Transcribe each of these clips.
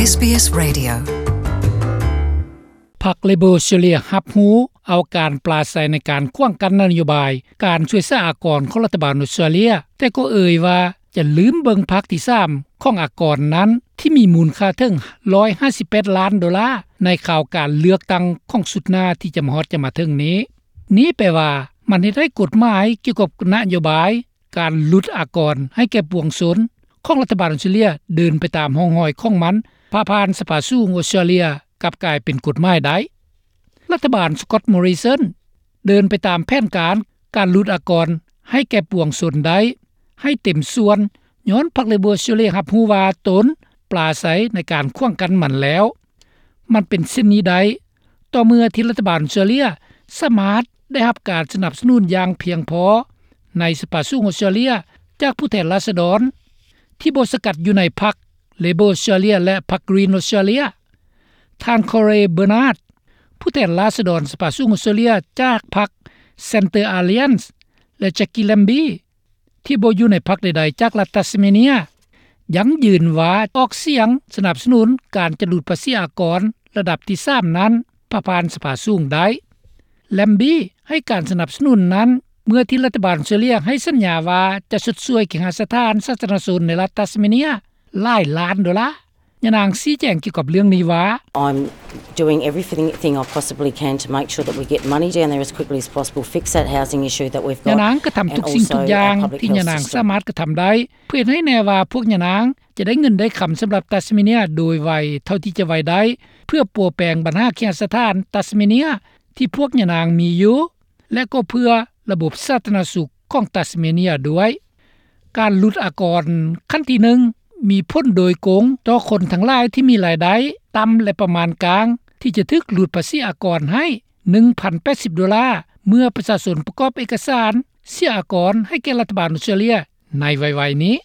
ເອສບີເອສ Radio. ພັກເລເບີ ອອສເຕຣເລັຽ ຮັບຮູ້ເອົາການປລາໄສໃນການຂວາງກັ້ນນະໂຍບາຍການຊ່ວຍສາອາກອນຂອງລັດຖະບານອອສເຕຣເລັຽ, ແຕ່ກໍເອີຍວ່າຈະລືມເບິ່ງພັກທີສາມຂອງອາກອນນັ້ນ ທີ່ມີມູນຄ່າເຖິງ ໜຶ່ງຮ້ອຍຫ້າສິບແປດລ້ານໂດລາ ໃນຂ່າວການເລືອກຕັ້ງຂອງຊຸດໜ້າທີ່ຈະມາຮອດຈະມາເຖິງນີ້. ນີ້ແປວ່າມັນເຮັດໃຫ້ກົດໝາຍກ່ຽວກັບນະໂຍບາຍ ການຫຼຸດອາກອນໃຫ້ແກ່ປວງຊົນຂອງລັດຖະບານອອສເຕຣເລັຽເດີນໄປຕາມຮ່ອງຮອຍຂອງມັນ ຜ່າຜ່ານສະພາສູງອອສເຕຣເລັຽ ກັບກາຍເປັນກົດໝາຍໄດ້. ລັດຖະບານ Scott Morrison ເດີນໄປຕາມແຜນການການຫຼຸດອາກອນໃຫ້ແກ່ປວງຊົນໄດ້ ໃຫ້ເຕັມສ່ວນ ຍ້ອນພັກເລເບີ ອອສເຕຣເລັຽ ຮັບຮູ້ວ່າຕົນປລາໄສໃນການຂວາງກັ້ນມັນແລ້ວ. ມັນເປັນເຊັ່ນນີ້ໄດ້ ຕໍ່ເມື່ອທີ່ລັດຖະບານອອສເຕຣເລັຽສາມາດໄດ້ຮັບການສະໜັບສະໜູນຢ່າງພຽງພໍໃນສະພາສູງອອສເຕຣເລັຽ ຈາກຜູ້ແທນລາຊະດອນທີ່ບໍ່ສັງກັດຢູ່ໃນພັກເລເບີ ອອສເຕຣເລັຽ ແລະ ພັກ Green ອອສເຕຣເລັຽ. ທ່ານ Cory Bernard ຜູ້ແທນລາຊະດອນສະພາສູງອອສເຕຣເລັຽ ຈາກພັກ Centre Alliance ແລະ Jackie Lambie ທີ່ບໍ່ຢູ່ໃນພັກໃດໆຈາກລັດ Tasmania ຢັ້ງຢືນວ່າອອກສຽງສະໜັບສະໜູນການຈະຫຼຸດພາສີອາກອນລະດັບທີສາມນັ້ນ ຜ່າຜ່ານສະພາສູງໄດ້. Lambie ໃຫ້ການສະໜັບສະໜູນນັ້ນ ເມື່ອທີ່ລັດຖະບານອອສເຕຣເລັຽໃຫ້ສັນຍາວ່າຈະຊົດຊ່ວຍເຄຫະສະຖານສາທາລະນະຊົນໃນລັດ Tasmania ຫຼາຍລ້ານໂດລາ. ຍານາງຊີ້ແຈງກ່ຽວກັບເລື່ອງນີ້ວ່າ I'm doing everything I possibly can to make sure that we get money down there as quickly as possible, fix that housing issue that we've got. ຍານາງກະທຳທຸກສິ່ງທຸກຢ່າງທີ່ຍານາງສາມາດກະທຳໄດ້ ເພື່ອເຮັດໃຫ້ແນ່ວ່າພວກຍານາງຈະໄດ້ເງິນໄດ້ຄຳສຳລັບ Tasmania ໂດຍໄວເທົ່າທີ່ຈະໄວໄດ້ ເພື່ອປົວແປງບັນຫາເຄຫະສະຖານ Tasmania ທີ່ພວກຍານາງມີຢູ່ ແລະ ກໍເພື່ອລະບົບສາທາລະນະສຸກຂອງ Tasmania ດ້ວຍ. ການຫຼຸດອາກອນຂັ້ນທີໜຶ່ງ ມີຜົນໂດຍກົງຕໍ່ຄົນທັງຫຼາຍທີ່ມີລາຍໄດ້ຕ່ຳ ແລະ ປະມານກາງ ທີ່ຈະຖືກຫຼຸດພາສີອາກອນໃຫ້ ໜຶ່ງພັນແປດສິບໂດລາ ເມື່ອປະຊາຊົນປະກອບເອກະສານເສຍອາກອນໃຫ້ແກ່ລັດຖະບານອອສເຕຣເລັຽໃນໄວໆນີ້.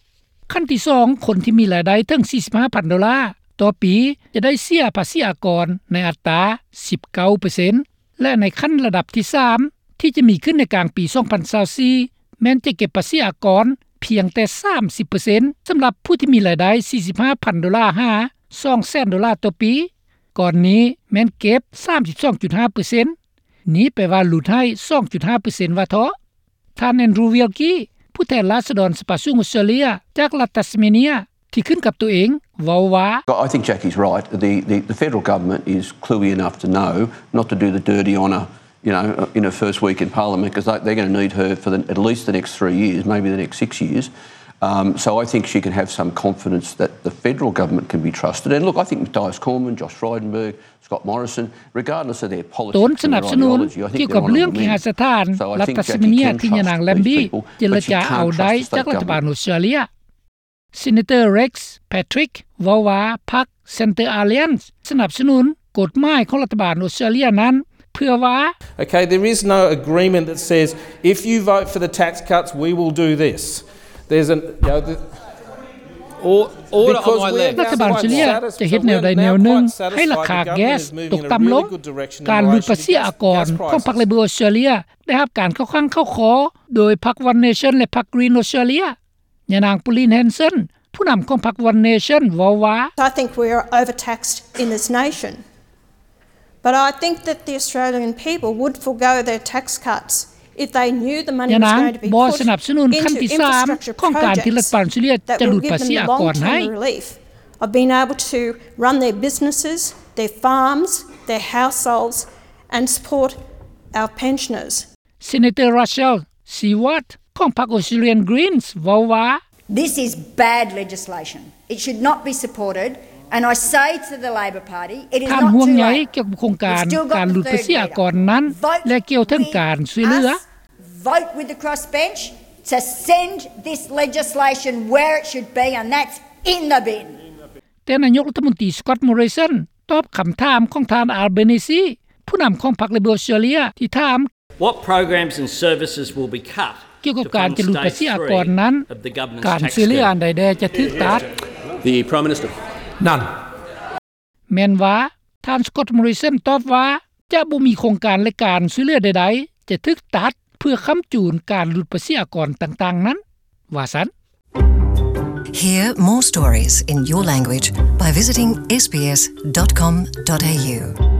ຂັ້ນທີສອງ ຄົນທີ່ມີລາຍໄດ້ເຖິງສີ່ສິບຫ້າພັນໂດລາຕໍ່ປີ ຈະໄດ້ເສຍພາສີອາກອນໃນອັດຕາສິບເກົ້າເປີເຊັນ ແລະ ໃນຂັ້ນລະດັບທີສາມ ທີ່ຈະມີຂຶ້ນໃນກາງປີສອງພັນຊາວສີ່ ແມ່ນຈະເກັບພາສີອາກອນພຽງແຕ່ສາມສິບເປີເຊັນ ສຳລັບຜູ້ທີ່ມີລາຍໄດ້ສີ່ສິບຫ້າພັນໂດລາ ຫາ ສອງແສນໂດລາຕໍ່ປີ. ກ່ອນນີ້ແມ່ນເກັບສາມສິບສອງຈຸດຫ້າເປີເຊັນ. ນີ້ແປວ່າຫຼຸດໃຫ້ສອງຈຸດຫ້າເປີເຊັນວ່າເທາະ. ທ່ານ Andrew Wilkie ຜູ້ແທນລາຊະດອນສະພາສູງອອສເຕຣເລັຽ ຈາກລັດ Tasmania ທີ່ຂຶ້ນກັບຕົວເອງ ເວົ້າວ່າ I think Jackie's right. The, the, the federal government is cluey enough to know not to do the dirty on a, you know, in her first week in Parliament, 'cause they, they're gonna need her for the, at least the next three years, maybe the next six years. Um, so I think she can have some confidence that the federal government can be trusted. And look, I think Mathias Cormann, Josh Frydenberg, Scott Morrison, regardless of their politics and their ideology, I think they're on a win. ຕົນສະໜັບສະໜູນກ່ຽວກັບເລື່ອງເຄຫະສະຖານລັດ Tasmania ທີ່ຍານາງ Lambie ເຈລະຈາເອົາໄດ້ຈາກລັດຖະບານອອສເຕຣເລັຽ. ເຊເນເຕີ Rex Patrick ເວົ້າວ່າ ພັກ Centre Alliance ສະໜັບສະໜູນກົດໝາຍຂອງລັດຖະບານອອສເຕຣເລັຽນັ້ນ ເພື່ອວ່າ Okay, there is no agreement that says if you vote for the tax cuts, we will do this. There's an, you know, the, ລັດຖະບານອອສເຕຣເລັຽຈະເຮັດແນວໃດແນວໜຶ່ງໃຫ້ລາຄາແກັສຕົກຕ່ຳລົງ. ການຫຼຸດພາສີອາກອນຂອງພັກ Labor ອອສເຕຣເລັຽ ໄດ້ຮັບການເຂົ້າຂ້າງເຂົ້າຄໍໂດຍພັກ One Nation ແລະ ພັກ Green ອອສເຕຣເລັຽ. ຍານາງ Pauline Hanson ຜູ້ນຳຂອງພັກ One Nation ເວົ້າວ່າ I think we are overtaxed in this nation, but I think that the Australian people would forego their tax cuts if they knew the money was going to be put into infrastructure projects that will give them long-term relief of being able to run their businesses, their farms, their households and support our pensioners. ເຊເນເຕີ Rachel Siewert ຂອງພັກ Australian Greens ເວົ້າວ່າ This is bad legislation. It should not be supported. And I say to the Labor Party, it is not too late. ທ່ານຫ່ວງໃຍກ່ຽວກັບໂຄງການການຫຼຸດພາສີອາກອນນັ້ນ ແລະ ກ່າວເຖິງການຊ່ວຍເຫຼືອ. Vote with the crossbench to send this legislation where it should be, and that's in the bin. ແຕ່ນາຍົກລັດຖະມົນຕີ Scott Morrison ຕອບຄຳຖາມຂອງທ່ານ Albanese ຜູ້ນຳຂອງພັກ Labor ອອສເຕຣເລັຽ ທີ່ຖາມ What programs and services will be cut ກ່ຽວກັບການຈະຫຼຸດພາສີອາກອນນັ້ນ ການຊ່ວຍເຫຼືອອັນໃດແດ່ຈະຖືກຕັດ? The Prime Minister. None. ແມ່ນວ່າ ທ່ານ Scott Morrison ຕອບວ່າ ຈະບໍ່ມີໂຄງການ ແລະ ການຊ່ວຍເຫຼືອໃດໆຈະຖືກຕັດ ເພື່ອຄ້ຳຈູນການຫຼຸດພາສີອາກອນຕ່າງໆນັ້ນ ວ່າຊັ້ນ. Hear more stories in your language by visiting S B S dot com dot A U.